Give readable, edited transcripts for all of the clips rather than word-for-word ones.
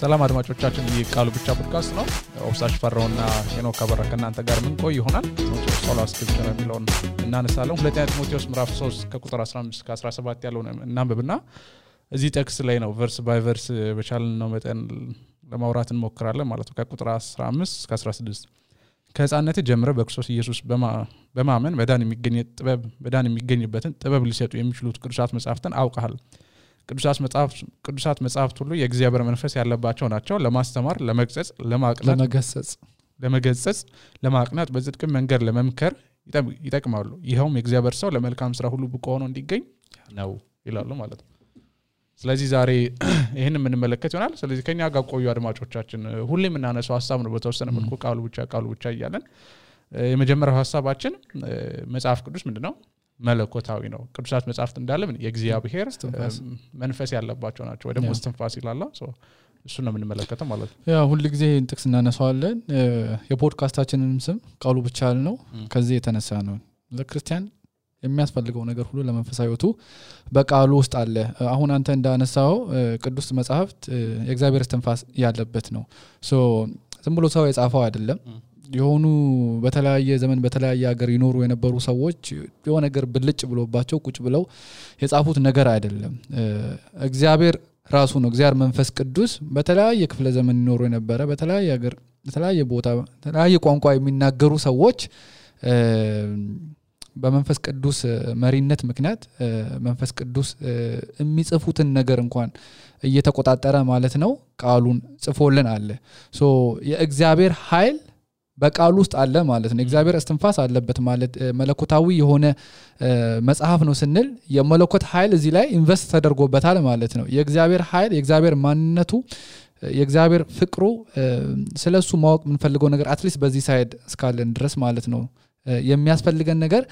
ሰላም አድማጮቻችን የቃሉ ብቻ ፖድካስት ነው። ኦፍሳሽ ፈራውና ሄኖክ አበራ ከእናንተ ጋር ምን ቆይ ይሆናል። ሶላ ስክሪፕቸር የሚለውን እናነሳለን። ሁለተኛ ጢሞቴዎስ ምዕራፍ 3 ከቁጥር 15 እስከ 17 ያለውን እናንብብና እዚህ ቴክስት ላይ ነው ቨርስ ባይ ቨርስ በቻልን ነው መጠን ለማውራት እንሞክራለን ማለት ነው። ከቁጥር 15 እስከ 16 ከህፃንነት ጀምረ በክርስቶስ ኢየሱስ በማመን በዳን የሚገኝበትን ጥበብ ሊሰጡ የሚችሉት ቅዱሳት መጻሕፍትን አውቀሃል። ቅዱሳት መጻሕፍት ሁሉ የእግዚአብሔር መንፈስ ያለባቸው ናቸው። ለማስተማር፣ ለመግጸጽ፣ ለመገሰጽ፣ ለማቅናት፣ በጽድቅ መንገድ ለመምከር ይጠቅማሉ። ይሄውም የእግዚአብሔር ሰው ለመልካም ስራ ሁሉ ብቁ ሆኖ እንዲገኝ ነው ይላሉ ማለት ነው። ስለዚህ ዛሬ ይሄን የምንመለከት ይሆናል። ስለዚህ ከኛ ጋር ቆዩ አድማጮቻችን። ሁሌም እናነሳው ሐሳብ ነው በተወሰነ መልኩ ቃሉ ብቻ እያለን የመጀመሪያው ሐሳባችን መጽሐፍ ቅዱስ ምንድነው? መለኮታዊ ነው። ቅዱሳት መጻሕፍት እንዳለ ምን የእግዚአብሔር መንፈስ ያለባቸው ናቸው ወይ ደግሞ እስትንፋስ ይላል። እሱ ነው የምንመለከተው ማለት ነው። ያ ሁሉ ጊዜ ጥቅስ እናነሳዋለን። የፖድካስታችንን ስም ቃሉ ብቻ ነው። ከዚህ የተነሳ ነው ለክርስቲያን የሚያስፈልገው ነገር ሁሉ ለመንፈሳዊቱ በቃሉ ውስጥ አለ። አሁን አንተ እንዳነሳው ቅዱስ መጻሕፍት የእግዚአብሔር እስትንፋስ ያለበት ነው። ዝም ብሎ ሰው የጻፈው አይደለም። የሆኑ በተለያየ ዘመን በተለያየ ሀገር ይኖሩ የነበሩ ሰዎች የሆነ ነገር ብልጭ ብሎባቸው ቁጭ ብለው የጻፉት ነገር አይደለም። እግዚአብሔር ራሱ ነው። እግዚአብሔር መንፈስ ቅዱስ በተለያየ ክፍለ ዘመን ይኖሩ የነበረ በተለያየ ሀገር በተለያየ ቦታ በተለያየ ቋንቋ የሚናገሩ ሰዎች በመንፈስ ቅዱስ መሪነት ምክንያት መንፈስ ቅዱስ የሚጽፉትን ነገር እንኳን እየተቆጣጠረ ማለት ነው ቃሉን ጽፎልን አለ። የእግዚአብሔር ኃይል በቃሉ ውስጥ አለ ማለት ነው። እግዚአብሔር እስትንፋስ አለበት ማለት መለኮታዊ የሆነ መጽሐፍ ነው ስንል የመለኮት ኃይል እዚህ ላይ ኢንቨስት ተደርጎበታል ማለት ነው። የእግዚአብሔር ኃይል የእግዚአብሔር ማንነቱ የእግዚአብሔር ፍቅሩ ስለሱ ማወቅ የምንፈልገው ነገር አትሊስት በዚህ ሳይድ እስካለን ድረስ ማለት ነው የሚያስፈልገን ነገር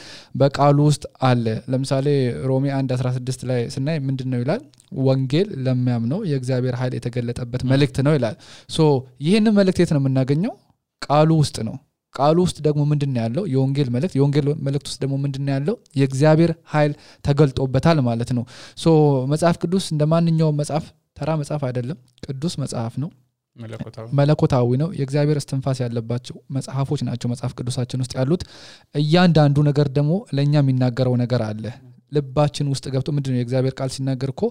በቃሉ ውስጥ አለ። ለምሳሌ ሮሜ 1:16 ላይ ስናይ ምንድነው ይላል? ወንጌል ለሚያምነው የእግዚአብሔር ኃይል የተገለጠበት መልእክት ነው ይላል። ይሄንን መልእክት የት ነው የምናገኘው? ቃሉ ውስጥ ነው። ቃሉ ውስጥ ደግሞ ምንድነው ያለው? የወንጌል መልእክት ውስጥ ደግሞ ምንድነው ያለው? የእግዚአብሔር ኃይል ተገልጦበታል ማለት ነው። መጽሐፍ ቅዱስ እንደማንኛውም መጽሐፍ ተራ መጽሐፍ አይደለም። ቅዱስ መጽሐፍ ነው። መለኮታዊ ነው። የእግዚአብሔር እስትንፋስ ያለባቸው መጽሐፎች ናቸው መጽሐፍ ቅዱሳችን ውስጥ ያሉት። እያንዳንዱ ነገር ደግሞ ለኛ የሚናገረው ነገር አለ። ልባችን ውስጥ ገብቶ ምንድነው የእግዚአብሔር ቃል ሲናገር እኮ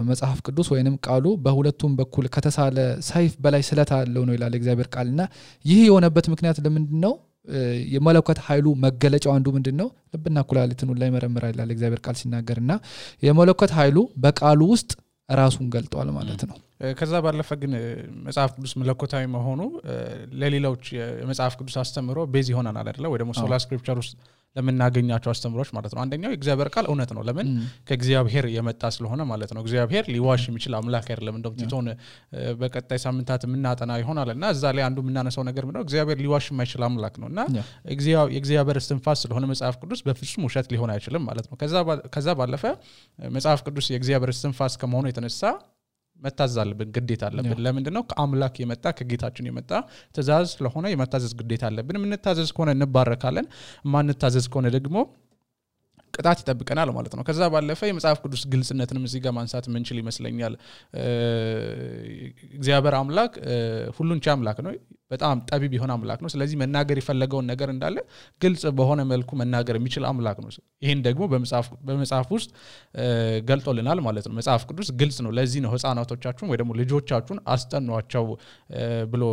መጽሐፍ ቅዱስ ወይንም ቃሉ በሁለቱም በኩል ከተሳለ ሰይፍ በላይ ስለት አለው ነው ይላል የእግዚአብሔር ቃልና ይህ የሆነበት ምክንያት ለምንድነው? የመለኮት ኃይሉ መገለጫው አንዱ ምንድነው? ልብና ኩላሊትን ሁሉ ላይ መረምራል ይላል የእግዚአብሔር ቃል ሲናገርና የመለኮት ኃይሉ በቃሉ ውስጥ ራሱን ገልጧል ማለት ነው። ከዛ ባለፈ ግን መጽሐፍ ቅዱስ መለኮታዊ መሆኑ ለሌሎች የመጽሐፍ ቅዱስ አስተምሮ ቤዝ ይሆናል አይደለ? ወይ ደግሞ ሶላ ስክሪፕቸር ውስጥ ለምናገኛቸው አስተምሮች ማለት ነው። አንደኛው የእግዚአብሔር ቃል እውነት ነው። ለምን? ከእግዚአብሔር የመጣ ስለሆነ ማለት ነው። እግዚአብሔር ሊዋሽ የሚችል አምላክ አይደለም። እንደውም ቲቶን በቀጣይ ሳምንታት የምናጠና ይሆናልና እዛ ላይ አንዱ የምናነሳው ነገር ምንድነው? እግዚአብሔር ሊዋሽ የማይችል አምላክ ነውና የእግዚአብሔር እስትንፋስ ስለሆነ መጽሐፍ ቅዱስ በፍጹም ውሸት ሊሆን አይችልም ማለት ነው። ከዛ ባለፈ መጽሐፍ ቅዱስ የእግዚአብሔር እስትንፋስ ከመሆኑ የተነሳ መታዘዝ አለብን፣ ግዴታ አለብን። ለምንድነው? ከአምላክ የመጣ ከጌታችን የመጣ ትእዛዝ ስለሆነ የመታዘዝ ግዴታ አለብን። የምንታዘዝ ከሆነ እንባረካለን፣ ማንታዘዝ ከሆነ ደግሞ ቅጣት ይጠብቀናል ማለት ነው። ከዛ ባለፈ የመጽሐፍ ቅዱስ ግልጽነትንም እዚህ ጋር ማንሳት ምንችል ይመስለኛል። እግዚአብሔር አምላክ ሁሉን ቻይ አምላክ ነው። በጣም ጠቢብ የሆነ አምላክ ነው። ስለዚህ መናገር የፈለገውን ነገር እንዳለ ግልጽ በሆነ መልኩ መናገር የሚችል አምላክ ነው። ይሄን ደግሞ በመጽሐፍ ውስጥ ገልጦልናል ማለት ነው። መጽሐፍ ቅዱስ ግልጽ ነው። ለዚህ ነው ሕፃናቶቻችሁን ወይ ደግሞ ልጆቻችሁን አስጠኗቸው ብሎ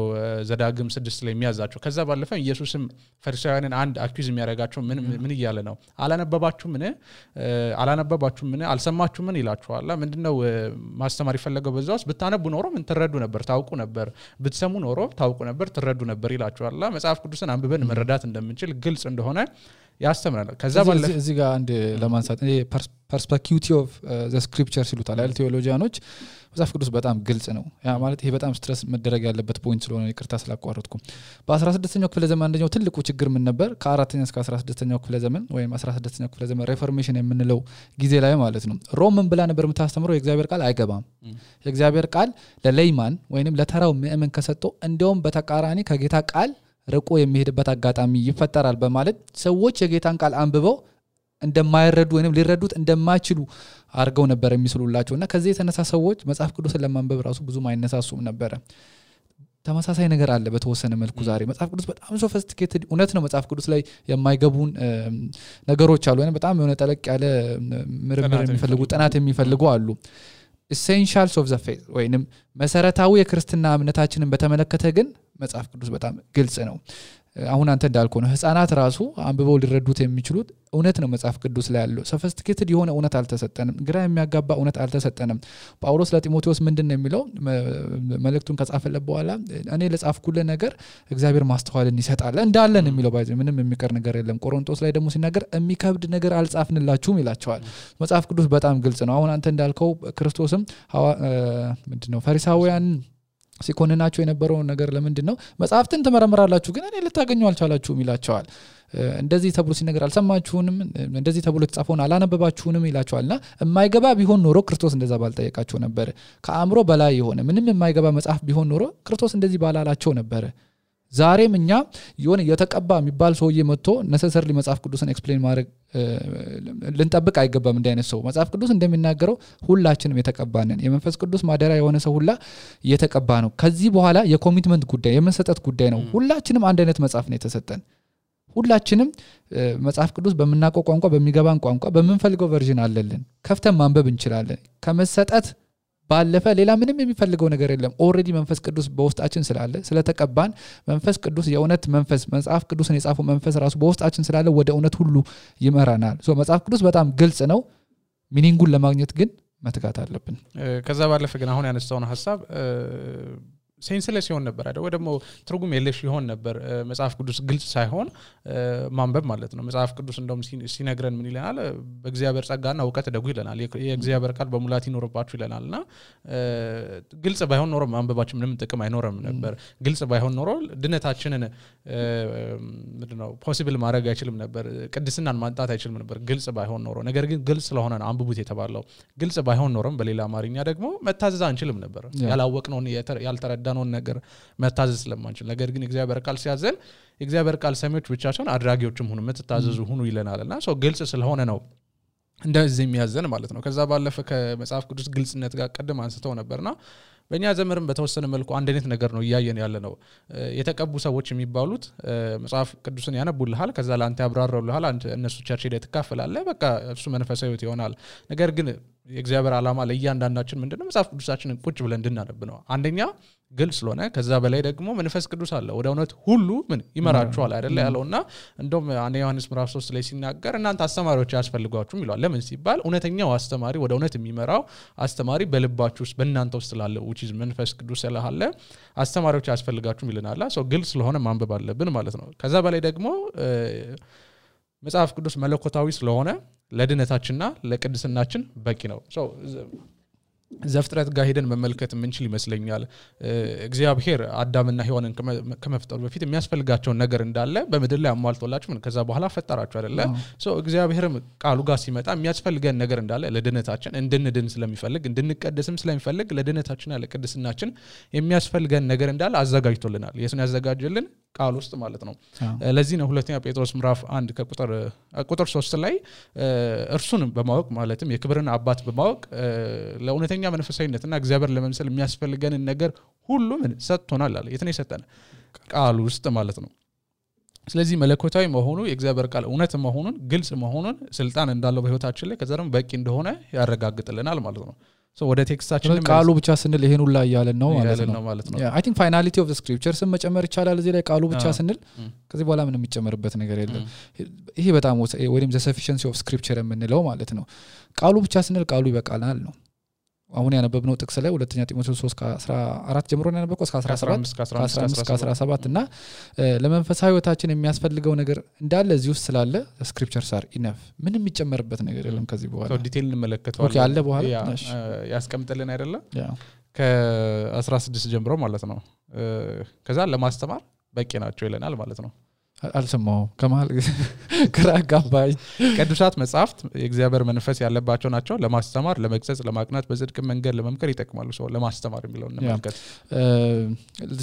ዘዳግም 6 ላይ የሚያዛቸው። ከዛ ባለፈ ኢየሱስም ፈሪሳውያንን አንድ አኪዩዝ የሚያደርጋቸው ምን እያለ ነው? አላነበባችሁም ምን አልሰማችሁም ምን ይላችኋል? ምንድነው ማስተማር ይፈልገው? በዛውስ ብታነቡ ኖሮ ምን ትረዱ ነበር፣ ታውቁ ነበር፣ ብትሰሙ ኖሮ ታውቁ ነበር፣ ትረዱ ነበር ይላችኋል። መጽሐፍ ቅዱስን አንብበን መረዳት እንደምንችል ግልጽ እንደሆነ ያስተምራል። ከዛ ባለፈ እዚህ ጋር አንድ ለማንሳት ፐርስፔክቲቭ ኦፍ ዘ ስክሪፕቸርስ ይሉታል አይደል ቴዎሎጂያኖች። መጽሐፍ ቅዱስ በጣም ግልጽ ነው። ያ ማለት ይሄ በጣም ስትረስ መደረግ ያለበት ፖይንት ስለሆነ ይቅርታ ስላቋረጥኩ። በ16ኛው ክፍለ ዘመን አንደኛው ትልቁ ችግር ምን ነበር? ከ4ኛ እስከ 16ኛው ክፍለ ዘመን ወይም 16ኛው ክፍለ ዘመን ሪፎርሜሽን የምንለው ጊዜ ላይ ማለት ነው ሮም ምን ብላ ነበር የምታስተምረው? የእግዚአብሔር ቃል አይገባም። የእግዚአብሔር ቃል ለሌይማን ወይንም ለተራው ምእመን ከሰጠው እንደውም በተቃራኒ ከጌታ ቃል ርቆ የሚሄድበት አጋጣሚ ይፈጠራል በማለት ሰዎች የጌታን ቃል አንብበው እንደማይረዱ ወይንም ሊረዱት እንደማይችሉ አርገው ነበር የሚስሉላቸውና ከዚህ የተነሳ ሰዎች መጽሐፍ ቅዱስን ለማንበብ ራሱ ብዙ ማይነሳሱም ነበር ተመሳሳይ ነገር አለ በተወሰነ መልኩ ዛሬ መጽሐፍ ቅዱስ በጣም ሶፊስቲኬትድ እውነት ነው መጽሐፍ ቅዱስ ላይ የማይገቡን ነገሮች አሉ ወይንም በጣም የሆነ ጠለቅ ያለ ምርምር የሚፈልጉ ጥናት የሚፈልጉ አሉ essentials of the faith ወይንም መሰረታዊ የክርስትና እምነታችንን በተመለከተ ግን መጽሐፍ ቅዱስ በጣም ግልጽ ነው አሁን አንተ እንዳልከው ነው ህፃናት ራሱ አንብበው ሊረዱት የሚችሉት እውነት ነው መጽሐፍ ቅዱስ ላይ ያለው ሶፊስቲኬትድ የሆነ እውነት አልተሰጠንም ግራ የሚያጋባ እውነት አልተሰጠንም ጳውሎስ ለጢሞቴዎስ ምንድነው የሚለው መልእክቱን ከጻፈለት በኋላ እኔ ለጻፍኩልህ ነገር እግዚአብሔር ማስተዋልን ይሰጣል እንዳለን የሚለው ባይዘ ምንም የሚቀር ነገር የለም ቆሮንቶስ ላይ ደግሞ ሲናገር የሚከብድ ነገር አልጻፍንላችሁም ይላቸዋል መጽሐፍ ቅዱስ በጣም ግልጽ ነው አሁን አንተ እንዳልከው ክርስቶስም ምንድነው ፈሪሳውያን ሲኮንናቸው የነበረው ነገር ለምንድነው መጽሐፍትን ተመረመራላችሁ ግን እኔ ልታገኙ አልቻላችሁም ይላቸዋል እንደዚህ ተብሎ ሲነገር አልሰማችሁንም እንደዚህ ተብሎ ተጻፈውን አላነበባችሁንም ይላቸዋልና የማይገባ ቢሆን ኖሮ ክርስቶስ እንደዛ ባልጠየቃቸው ነበር ከአእምሮ በላይ የሆነ ምንም የማይገባ መጽሐፍ ቢሆን ኖሮ ክርስቶስ እንደዚህ ባላላቸው ነበር ዛሬም እኛ የሆነ የተቀባ የሚባል ሰውዬ መጥቶ necessarily መጽሐፍ ቅዱስን ኤክስፕሌን ማድረግ ልንጠብቅ አይገባም እንደ አይነት ሰው መጽሐፍ ቅዱስ እንደሚናገረው ሁላችንም የተቀባነን የመንፈስ ቅዱስ ማደሪያ የሆነ ሰው ሁላ የተቀባ ነው ከዚህ በኋላ የኮሚትመንት ጉዳይ የመሰጠት ጉዳይ ነው ሁላችንም አንድ አይነት መጽሐፍ ነው የተሰጠን ሁላችንም መጽሐፍ ቅዱስ በመናቆ ቋንቋ በሚገባን ቋንቋ በመንፈልገው ቨርዥን አለልን ከፍተን ማንበብ እንችላለን ከመሰጠት ባለፈ ሌላ ምንም የሚፈልገው ነገር የለም ኦሬዲ መንፈስ ቅዱስ በውስጣችን ስላለ ስለተቀባን መንፈስ ቅዱስ የእውነት መንፈስ መጽሐፍ ቅዱስን የጻፈው መንፈስ ራሱ በውስጣችን ስላለ ወደ እውነት ሁሉ ይመራናል ሶ መጽሐፍ ቅዱስ በጣም ግልጽ ነው ሚኒንጉን ለማግኘት ግን መትጋት አለብን ከዛ ባለፈ ግን አሁን ያነሳውን ሐሳብ ሴንስለስ ይሆን ነበር አይደል ወይ ደግሞ ትርጉም የለሽ ይሆን ነበር መጽሐፍ ቅዱስ ግልጽ ሳይሆን ማንበብ ማለት ነው መጽሐፍ ቅዱስ እንደውም ሲነግረን ምን ይለናል በእግዚአብሔር ጸጋና ዕውቀት ደጉ ይለናል የእግዚአብሔር ቃል በሙላት ይኖርባችሁ ይለናልና ግልጽ ባይሆን ኖሮ ማንበባችን ምንም ጥቅም አይኖርም ነበር ግልጽ ባይሆን ኖሮ ድነታችንን ምንድነው ፖሲብል ማድረግ አይችልም ነበር ቅድስናን ማንጣት አይችልም ነበር ግልጽ ባይሆን ኖሮ ነገር ግን ግልጽ ስለሆነ ነው አንብቡት የተባለው ግልጽ ባይሆን ኖሮም በሌላ አማርኛ ደግሞ መታዘዝ አንችልም ነበር ያላወቅነው ያልተረዳነው ነገር መታዘዝ ስለማንችል ነገር ግን እግዚአብሔር ቃል ሲያዘን እግዚአብሔር ቃል ሰሚዎች ብቻ ሳይሆን አድራጊዎችም ሆኑ መተታዘዙ ሆኑ ይለናልና ሶ ግልጽ ስለሆነ ነው እንደዚህ የሚያዘን ማለት ነው ከዛ ባለፈ ከመጽሐፍ ቅዱስ ግልጽነት ጋር ቀደም አንስተው ነበርና በእኛ ዘመንም በተወሰነ መልኩ አንድ አይነት ነገር ነው ያያየን ያለ ነው የተቀቡ ሰዎች የሚባሉት መጽሐፍ ቅዱስን ያነቡልሃል ከዛ ላንተ ያብራራውልሃል እነሱ ቸርች ሄደህ ትካፈላለህ በቃ እሱ መንፈሳዊ ህይወት ይሆናል ነገር ግን የእግዚአብሔር ዓላማ ለእያንዳንዳችን ምንድነው መጽሐፍ ቅዱሳችንን ቁጭ ብለን እንድናነብ ነው አንደኛ ግልጽ ስለሆነ ከዛ በላይ ደግሞ መንፈስ ቅዱስ አለ ወደ እውነት ሁሉ ምን ይመራችኋል አይደለ ያለውና እንደውም ዮሐንስ ምዕራፍ 3 ላይ ሲናገር እናንተ አስተማሪዎች ያስፈልጓችሁም ይላል ለምን ሲባል እውነተኛው አስተማሪ ወደ እውነት የሚመራው አስተማሪ በልባችሁ ውስጥ በእናንተ ውስጥ ስላለ which is መንፈስ ቅዱስ ስላለ አስተማሪዎች ያስፈልጋችሁም ይለናል ሶ ግልጽ ስለሆነ ማንበብ አለብን ማለት ነው ከዛ በላይ ደግሞ መጽሐፍ ቅዱስ መለኮታዊ ስለሆነ ለድነታችንና ለቅድስናችን በቂ ነው ሶ ዘፍጥረት ጋር ሄደን መመልከት ምንችል ይመስለኛል እግዚአብሔር አዳምና ሔዋንን ከመፍጠሩ በፊት የሚያስፈልጋቸው ነገር እንዳለ በመድር ላይ አሟልቶላችሁ ምን ከዛ በኋላ ፈጠራችሁ አይደለ ሶ እግዚአብሔርም ቃሉ ጋር ሲመጣ የሚያስፈልገን ነገር እንዳለ ለድነታችን እንድንድን ስለሚፈልግ እንድንቀደስም ስለሚፈልግ ለድነታችንና ለቅድስናችን የሚያስፈልገን ነገር እንዳለ አዘጋጅቶልናል የሱን ያዘጋጀልን ቃል ውስጥ ማለት ነው ለዚህ ነው ሁለተኛ ጴጥሮስ ምዕራፍ 1 ከቁጥር 3 ላይ እርሱን በማወቅ ማለትም የክብርን አባት በማወቅ ለእውነተኛ መንፈሳዊነትና እግዚአብሔር ለመምሰል የሚያስፈልገን ነገር ሁሉ ምን ሰጥቶናል አለ የት ነው የሰጠን ቃል ውስጥ ማለት ነው ስለዚህ መለኮታዊ መሆኑ የእግዚአብሔር ቃል እውነት መሆኑን ግልጽ መሆኑን ስልጣን እንዳለው በህይወታችን ላይ ከዛም በቂ እንደሆነ ያረጋግጥልናል ማለት ነው ሶ ወደ ቴክስታችን ቃሉ ብቻ ስንል ይሄን ሁላ ያያለን ነው ማለት ነው አይ ቲንክ ፋይናሊቲ ኦፍ ዘ ስክሪፕቸርስ መጨመር ይቻላል እዚህ ላይ ቃሉ ብቻ ስንል ከዚህ በኋላ ምንም የሚጨመርበት ነገር የለም ይሄ በጣም ወይም ዘ ሰፊሺየንሲ ኦፍ ስክሪፕቸር የምንለው ማለት ነው ቃሉ ብቻ ስንል ቃሉ ይበቃናል ነው አሁን ያነበብነው ጥቅስ ላይ ሁለተኛ ጢሞቴዎስ 3:14 ጀምሮ ያነበብነው እስከ 17 እና ለመንፈሳዊ ህይወታችን የሚያስፈልገው ነገር እንዳለ እዚህ ውስጥ ስላለ ስክሪፕቸርስ አር ኢነፍ ምንም የሚጨመርበት ነገር የለም ከዚህ በኋላ ሶ ዲቴል እንመለከተዋለን ኦኬ አለ በኋላ ያስቀምጥልን አይደለ ከ16 ጀምሮ ማለት ነው ከዛ ለማስተማር በቂ ናቸው ይለናል ማለት ነው አልሰማው ከመሃል ግራ አጋባኝ ቅዱሳት መጻሕፍት የእግዚአብሔር መንፈስ ያለባቸው ናቸው ለማስተማር ለመግሰጽ ለማቅናት በጽድቅ መንገድ ለመምከር ይጠቅማሉ ሰው ለማስተማር የሚለው እንመልከት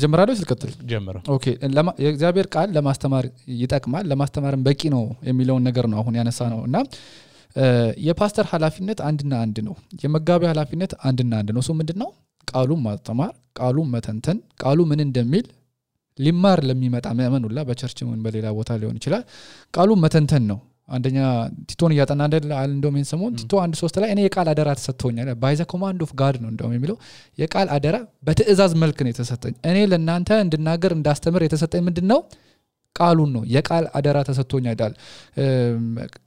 ጀምራለሁ ልቀጥል ጀምራ ኦኬ የእግዚአብሔር ቃል ለማስተማር ይጠቅማል ለማስተማርም በቂ ነው የሚለው ነገር ነው አሁን ያነሳ ነውና የፓስተር ኃላፊነት አንድና አንድ ነው የመጋቢ ኃላፊነት አንድና አንድ ነው ሶ ምንድነው ቃሉን ማስተማር ቃሉን መተንተን ቃሉ ምን እንደሚል ሊማር ለሚመጣ ምእመን ሁላ በቸርችም በሌላ ቦታ ሊሆን ይችላል ቃሉን መተንተን ነው አንደኛ ቲቶን ያጠና እንደውም እንሰሞን ቲቶ 1:3 ላይ እኔ የቃል አደራ ተሰጥቶኛል ባይ ዘ ኮማንድ ኦፍ ጋድ ነው እንደውም የሚለው የቃል አደራ በትእዛዝ መልክ ነው የተሰጠኝ እኔ ለእናንተ እንድናገር እንዳስተምር የተሰጠኝ ምንድነው ቃሉን ነው የቃል አደራ ተሰጥቶኛል አይደል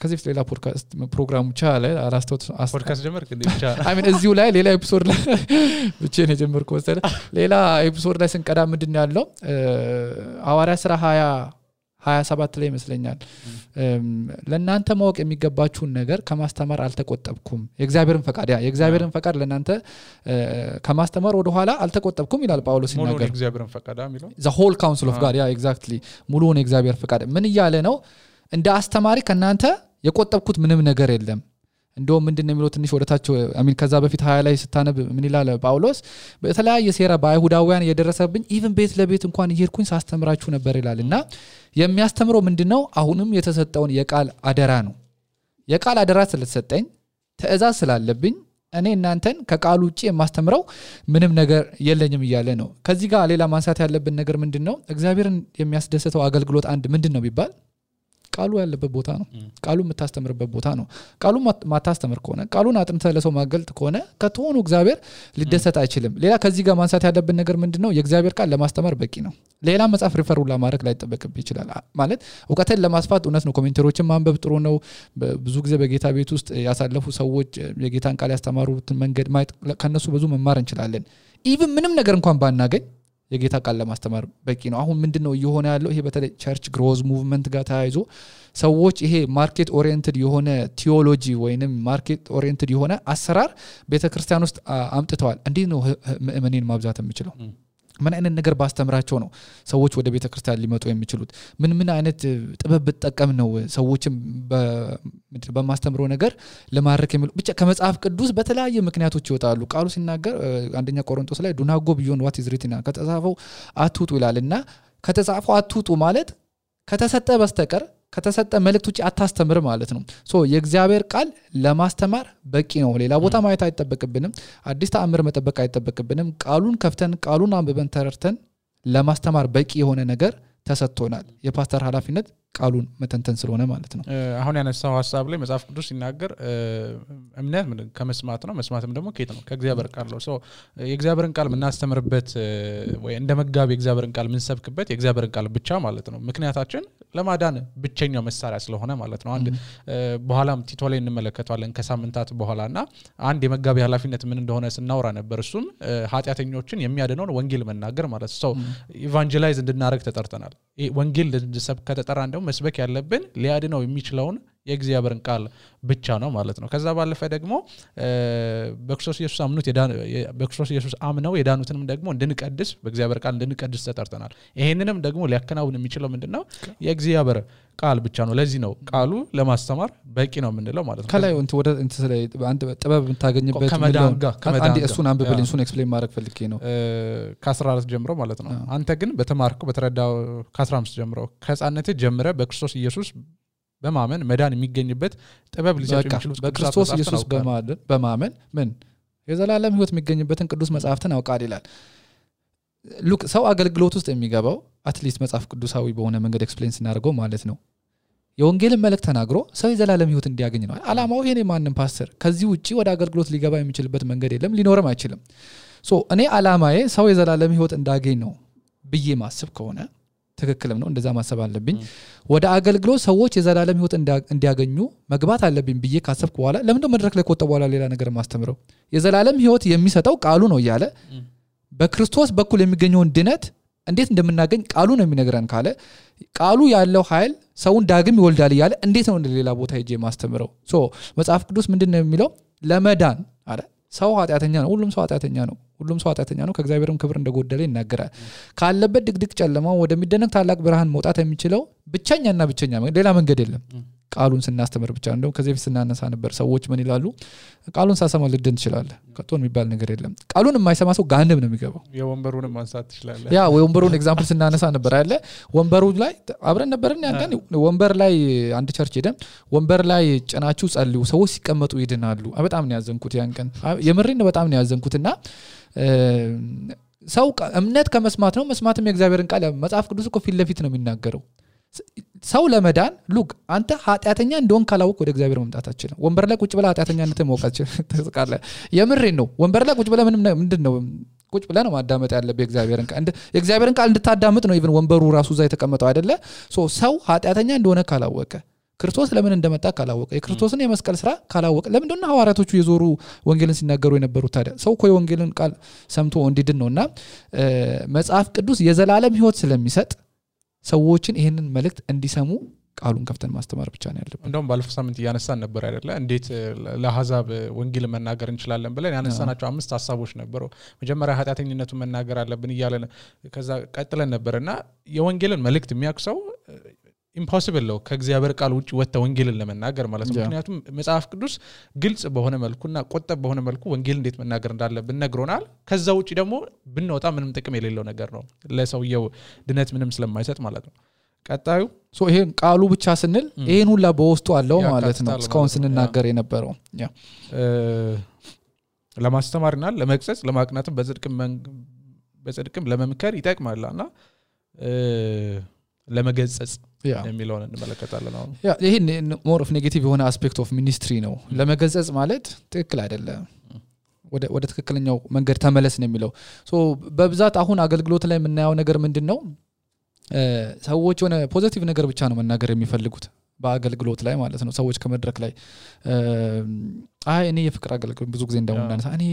ከዚህ ሌላ ፖድካስት ፕሮግራም ቻለ አላስተውት ፖድካስት ጀመርክ እንዴ ብቻ አይ ሚን እዚሁ ላይ ሌላ ኤፒሶድ ላይ ብቻ ነው ጀመርኩ ወሰለ ሌላ ኤፒሶድ ላይ ስንቀዳ ምንድነው ያለው ሐዋርያ ሥራ 27 ላይ ይመስለኛል ለእናንተ ማወቅ የሚገባችሁን ነገር ከማስተማር አልተቆጠብኩም የእግዚአብሔርን ፈቃድ ለእናንተ ከማስተማር ወደ ኋላ አልተቆጠብኩም ይላል ጳውሎስ ሲናገር የእግዚአብሔርን ፈቃድ የሚለው the whole counsel of God exactly ሙሉውን የእግዚአብሔር ፈቃድ ምን ይያለ ነው እንደ አስተማሪ ከናንተ የቆጠብኩት ምንም ነገር የለም እንደው ምንድነው የሚለው ትንሽ ወደታቸው አሚን ከዛ በፊት 20 ላይ ስታነብ ምን ይላል ጳውሎስ በተለያየ ሴራ በአይሁዳውያን የደረሰብኝ ኢቭን ቤት ለቤት እንኳን እየሄድኩኝ ሳስተምራችሁ ነበር ይላልና የሚያስተምረው ምንድነው አሁንም የተሰጠውን የቃል አደራ ነው የቃል አደራ ስለተሰጠኝ ተእዛዝ ስላለብኝ እኔ እናንተን ከቃሉ ውጪ የማስተምረው ምንም ነገር የለኝም ይያለ ነው ከዚህ ጋር ሌላ ማንሳት ያለብን ነገር ምንድነው እግዚአብሔርን የሚያስደስተው አገልግሎት አንድ ምንድነው ቢባል ቃሉ ያለበት ቦታ ነው ቃሉ የምታስተምርበት ቦታ ነው ቃሉ ማታስተምር ከሆነ ቃሉን አጥንተህ ለሰው ማገልጥ ከሆነ ከተሆኑ እግዚአብሔር ሊደሰት አይችልም ሌላ ከዚህ ጋር ማንሳት ያለብን ነገር ምንድነው የእግዚአብሔር ቃል ለማስተማር በቂ ነው ሌላ መጽሐፍ ሪፈር ሁላ ማድረግ ላይ ተጠበቅብ ይችላል ማለት ዕውቀትን ለማስፋት እውነት ነው ኮሜንተሮችን ማንበብ ጥሩ ነው ብዙ ጊዜ በጌታ ቤት ውስጥ ያሳለፉ ሰዎች የጌታን ቃል ያስተማሩትን መንገድ ማየት ከነሱ ብዙ መማር እንችላለን ኢቭን ምንም ነገር እንኳን ባናገኝ የጌታ ቃል ለማስተማር በቂ ነው አሁን ምንድነው እየሆነ ያለው ይሄ በተለይ ቸርች ግሮዝ ሙቭመንት ጋር ተያይዞ ሰዎች ይሄ ማርኬት ኦሪየንትድ የሆነ ቲዮሎጂ ወይንም ማርኬት ኦሪየንትድ የሆነ አሰራር ቤተክርስቲያን ውስጥ አምጥተዋል እንዴ ነው ምእመናን ማብዛት የሚችለው ምን አይነት ነገር ባስተምራቸው ነው ሰዎች ወደ ቤተክርስቲያን ሊመጡ የሚችሉት ምን አይነት ጥበብ ተጠቀም ነው ሰዎችን በማስተምሮ ነገር ለማረክ የሚሉ ብቻ ከመጽሐፍ ቅዱስ በተለያየ ምክንያቶች ይወጣሉ ቃሉ ሲናገር አንደኛ ቆሮንቶስ ላይ ዱናጎ ቢዮን ዋት ኢዝ ሪትን ከተጻፈው አትውጡ ይላልና ከተጻፈው አትውጡ ማለት ከተሰጠ በስተቀር ከተሰጠ መልእክት ውጪ አታስተምር ማለት ነው ሶ የእግዚአብሔር ቃል ለማስተማር በቂ ነው ሌላ ቦታ ማየት አይተበቅብንም አዲስ ተአምር መጠበቅ አይተበቅብንም ቃሉን ከፍተን ቃሉን አንብበን ተረርተን ለማስተማር በቂ የሆነ ነገር ተሰጥቶናል የፓስተር ኃላፊነት ቃሉን መተንተን ስለሆነ ማለት ነው አሁን ያነሳው ሐሳብ ላይ መጽሐፍ ቅዱስ ሲናገር እምነት ምን ከመስማት ነው መስማትም ደግሞ ከየት ነው ከእግዚአብሔር ቃል ነው ሶ የእግዚአብሔርን ቃል ምናስተምርበት ወይ እንደ መጋቢ የእግዚአብሔርን ቃል ምንሰብክበት የእግዚአብሔርን ቃል ብቻ ማለት ነው ምክንያታችን ለማዳን ብቸኛው መሳሪያ ስለሆነ ማለት ነው አንድ በኋላም ቲቶ ላይ እንመለከታለን ከሳምንታት በኋላና አንድ የመጋቢ ኃላፊነት ምን እንደሆነ ስናወራ ነበር እሱም ኃጢያተኞችን የሚያድነውን ወንጌል መናገር ማለት ነው ኢቫንጀላይዝ እንድናረግ ተጠርተናል ወንጌል እንድሰብክ ከተጠራ እንደው መስበክ ያለብን ሊያድነው የሚችለውን የእግዚአብሔርን ቃል ብቻ ነው ማለት ነው ከዛ ባለፈ ደግሞ በክርስቶስ ኢየሱስ አምነው የዳኑትንም ደግሞ እንድንቀድስ በእግዚአብሔር ቃል እንድንቀድስ ተጠርተናል ይሄንንም ደግሞ ሊያከናውን የሚችለው ምንድነው የእግዚአብሔር ቃል ብቻ ነው ለዚህ ነው ቃሉ ለማስተማር በቂ ነው የምንለው ማለት ነው ከላይ ወደ አንድ ጥበብ የምታገኝበት አንድ እሱን አንብብልኝ እሱን ኤክስፕሌን ማድረግ ፈልጌ ነው ከ14 ጀምሮ ማለት ነው አንተ ግን በተማርኩ በተረዳው ከ15 ጀምሮ ከሕፃንነት ጀምረ በክርስቶስ ኢየሱስ በማመን መዳን የሚገኝበት ጥበብ ሊሰጡ የሚችሉት በክርስቶስ ኢየሱስ በማመን ምን የዘላለም ሕይወት የሚገኝበትን ቅዱስ መጽሐፍትን አውቃል ይላል ሉክ ሰው አገልግሎት ውስጥ የሚገባው አትሊስት መጽሐፍ ቅዱሳዊ በሆነ መንገድ ኤክስፕሌን ስናደርገው ማለት ነው የወንጌልን መልእክት ተናግሮ ሰው የዘላለም ሕይወት እንዲያገኝ ነው አላማው ይሄ ማንንም ፓስተር ከዚህ ውጪ ወደ አገልግሎት ሊገባ የሚችልበት መንገድ የለም ሊኖርም አይችልም ሶ እኔ አላማዬ ሰው የዘላለም ሕይወት እንዳገኝ ነው ብዬ ማስብ ከሆነ ትክክልም ነው እንደዛ ማሰብ አለብኝ ወደ አገልግሎት ሰዎች የዘላለም ሕይወት እንዲያገኙ መግባት አለብኝ ብዬ ካሰብኩ በኋላ ለምን ነው መድረክ ላይ ቆጠ በኋላ ሌላ ነገር ማስተምረው የዘላለም ሕይወት የሚሰጠው ቃሉ ነው ያለ በክርስቶስ በኩል የሚገኘውን ድነት እንዴት እንደምናገኝ ቃሉ ነው የሚነግረን ካለ ቃሉ ያለው ኃይል ሰውን ዳግም ይወልዳል ያለ እንዴት ነው ሌላ ቦታ ሄጄ ማስተምረው ሶ መጽሐፍ ቅዱስ ምንድነው የሚለው ለመዳን አረ ሰው ኃጢያተኛ ነው ሁሉም ሰው ኃጢያተኛ ነው ሁሉም ሰው ኃጢአተኛ ነው ከእግዚአብሔርም ክብር እንደጎደለ ይናገራል ካለበት ድቅድቅ ጨለማ ወደሚደነቅ ታላቅ ብርሃን መውጣት የሚችለው ብቸኛና ብቸኛ ሌላ መንገድ የለም ቃሉን ስናስተምር ብቻ እንደው ከዚህ በፊት ስናነሳ ነበር ሰዎች ምን ይላሉ ቃሉን ሳሰማ ልድን ትችላለህ ከቶን የሚባል ነገር የለም ቃሉን የማይሰማ ሰው ጋንም ነው የሚገባው የወንበሩንም ማንሳት ትችላለህ ያ ወንበሩን ኤግዛምፕል ስናነሳ ነበር አይደለ ወንበሩ ላይ አብረን ነበርን ያን ወንበር ላይ አንድ ቸርች ሄደን ወንበር ላይ ጭናችሁ ጸልዩ ሰዎች ሲቀመጡ ይድናሉ በጣም ነው ያዘንኩት ያን ቀን የምሬን በጣም ነው ያዘንኩትና ሰው እምነት ከመስማት ነው መስማትም የእግዚአብሔርን ቃል መጽሐፍ ቅዱስ እኮ ፊት ለፊት ነው የሚናገረው ሰው ለመዳን ሉክ አንተ ኃጢአተኛ እንደሆን ካላወቅ ወደ እግዚአብሔር መምጣት አትችልም ወንበር ላይ ቁጭ ብለ ኃጢአተኛነትን ማወቃች ተስቃለ የምሬን ነው ወንበር ላይ ቁጭ ብለ ምንድነው ቁጭ ብለ ነው ማዳመጥ ያለበት የእግዚአብሔርን ቃል እንድታዳምጥ ነው ኢቭን ወንበሩ ራሱ እዛ የተቀመጠው አይደለ ሰው ኃጢአተኛ እንደሆነ ካላወቀ ክርስቶስ ለምን እንደመጣ ካላወቀ የክርስቶስን የመስቀል ስራ ካላወቀ ለምን እንደሆነ ሐዋርያቶቹ የዞሩ ወንጌልን ሲናገሩ የነበሩት ታዲያ ሰው እኮ የወንጌልን ቃል ሰምቶ እንዲድን ነውና መጽሐፍ ቅዱስ የዘላለም ህይወት ስለሚሰጥ ሰዎችን ይሄንን መልእክት እንዲሰሙ ቃሉን ከፍተን ማስተማር ብቻ ነው ያለበት እንደውም ባለፈው ሳምንት ያነሳን ነበር አይደለ እንዴት ለአሕዛብ ወንጌል መናገር እንችላለን ብለን ያነሳናቸው 5 ሐሳቦች ነበሩ መጀመሪያ ኃጢአተኝነቱን መናገር አለብን ይያለን ከዛ ቀጥለን ነበርና የወንጌልን መልእክት የሚያክሰው ኢምፖሲብል ነው ከእግዚአብሔር ቃል ውጪ ወጣ ወንጌልን ለመናገር ማለት ነው ምክንያቱም መጽሐፍ ቅዱስ ግልጽ በሆነ መልኩና ቆጠብ በሆነ መልኩ ወንጌል እንዴት መናገር እንዳለብን ነግሮናል ከዛ ውጪ ደግሞ ብንወጣ ምንም ጥቅም የሌለው ነገር ነው ለሰውየው ድነት ምንም ስለማይሰጥ ማለት ነው ቀጣዩ ይሄን ቃሉ ብቻ ስንል ይሄን ሁላ በውስጡ አለው ማለት ነው እስካሁን ስንናገር የነበረው ለማስተማርና ለመግሰጽ ለማቅናትም በጽድቅም ለመምከር ይጠቅማልና ለመገጸጽ የሚለውን እንመለከታለን አሁን ይሄ ሞር ኦፍ ኔጌቲቭ የሆነ አስፔክት ኦፍ ሚኒስትሪ ነው ለመገጸጽ ማለት ትክክል አይደለም ወደ ትክክለኛው መንገድ ተመለስ ነው የሚለው በብዛት አሁን አገልግሎት ላይ የምናየው ነገር ምንድነው ሰዎች ሆነ ፖዚቲቭ ነገር ብቻ ነው መናገር የሚፈልጉት በአገልግሎት ላይ ማለት ነው ሰዎች ከመድረክ ላይ እኔ የፍቅር አገልግሎት ብዙ ጊዜ እንደውናነሳ እኔ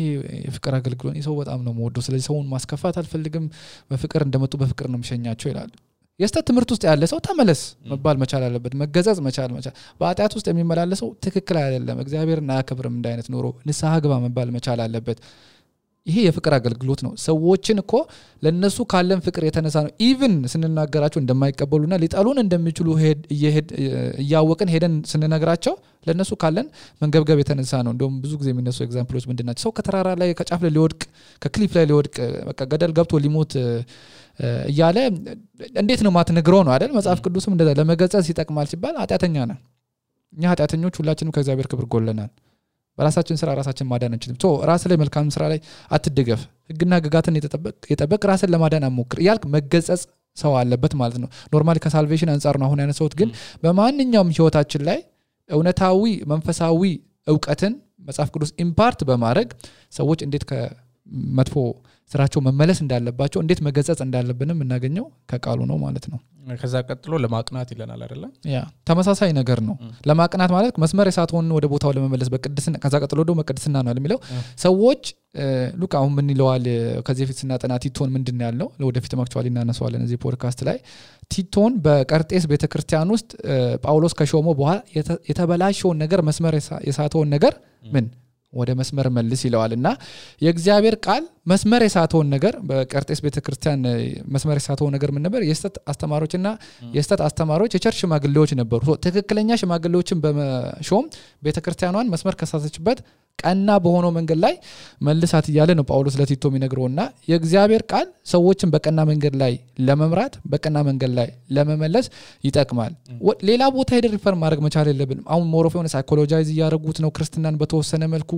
የፍቅር አገልግሎት ሰው በጣም ነው የምወደው ስለዚህ ሰውን ማስከፋት አልፈልግም በፍቅር እንደመጡ በፍቅር ነው የምሸኛቸው ይላል የስተት ትምህርት ውስጥ ያለ ሰው ተመለስ መባል መቻል አለበት መገዛዝ መቻል በአጥያት ውስጥ የሚመላለሰው ትክክል አይደለም እግዚአብሔርን አያከብርም እንዳይነት ኖሮ ንስሐ ግባ መባል መቻል አለበት ይሄ የፍቅር አገልግሎት ነው ሰዎችን እኮ ለነሱ ካለን ፍቅር የተነሳ ነው ኢቭን ስንናገራቸው እንደማይቀበሉና ሊጣሉን እንደሚችሉ እያወቅን ሄደን ስንነግራቸው ለነሱ ካለን መንገብገብ የተነሳ ነው እንደውም ብዙ ጊዜ የሚነሱ ኤግዛምፕሎች ምንድናቸው ሰው ከተራራ ላይ ከጫፍ ላይ ሊወድቅ ከክሊፍ ላይ ሊወድቅ በቃ ገደል ገብቶ ሊሞት እያለ እንዴት ነው ማትነግረው ነው አይደል መጽሐፍ ቅዱስም እንደዛ ለመገጸጽ ይጠቅማል ሲባል ኃጢአተኛ ነን እኛ ኃጢአተኞች ሁላችንም ከእግዚአብሔር ክብር ጎለናል በራሳችን ስራ ራሳችን ማዳን እንችልም ራስ ላይ መልካም ስራ ላይ አትደገፍ ህግና ህግጋትን የጠበቅ ራስን ለማዳን አሞክር ያልክ መገጸጽ ሰው አለበት ማለት ነው ኖርማሊ ከሳልቬሽን አንፃር ነው አሁን ያነሳውት ግን በማንኛውም ህይወታችን ላይ እውነታዊ መንፈሳዊ ዕውቀትን መጽሐፍ ቅዱስ ኢምፓርት በማድረግ ሰዎች እንዴት ከመጥፎ ስራቸው መመለስ እንዳለባቸው እንዴት መገጸጽ እንዳለብንም እናገኘው ከቃሉ ነው ማለት ነው ከዛ ቀጥሎ ለማቅናት ይለናል አይደለ ተመሳሳይ ነገር ነው ለማቅናት ማለት መስመር የሳተውን ወደ ቦታው ለመመለስ በቅድስና ከዛ ቀጥሎ ደግሞ መቅደስና ነው የሚለው ሰዎች ሉቃ አሁን ምን ይለዋል ከዚህ ፊት ስናጠና ቲቶን ምንድነው ያለው ለወደፊት አክቹአሊ እናነሳዋለን እዚህ ፖድካስት ላይ ቲቶን በቀርጤስ ቤተክርስቲያን ውስጥ ጳውሎስ ከሾሞ በኋላ የተበላሸውን ነገር መስመር የሳተውን ነገር ምን ወደ መስመር መልስ ይለዋልና የእግዚአብሔር ቃል መስመር የሳተውን ነገር በቀርጤስ ቤተክርስቲያን መስመር የሳተውን ነገር ምን ነበር የስተት አስተማሪዎችና የስተት አስተማሪዎች የቸርች ሽማግሌዎች ነበሩ ትክክለኛ ሽማግሌዎችን በመሾም ቤተክርስቲያኗን መስመር ከሳተችበት ቀና በሆነው መንገድ ላይ መልሳት ይያለ ነው ጳውሎስ ለቲቶ የሚነግረውና የእግዚአብሔር ቃል ሰዎችን በቀና መንገድ ላይ ለመምራት በቀና መንገድ ላይ ለመመለስ ይጠቅማል ሌላ ቦታ ሄደ ሪፈር ማድረግ መቻል የለብንም አሁን ሞሮፍ የሆነ ሳይኮሎጃይዝ ያደረጉት ነው ክርስትናን በተወሰነ መልኩ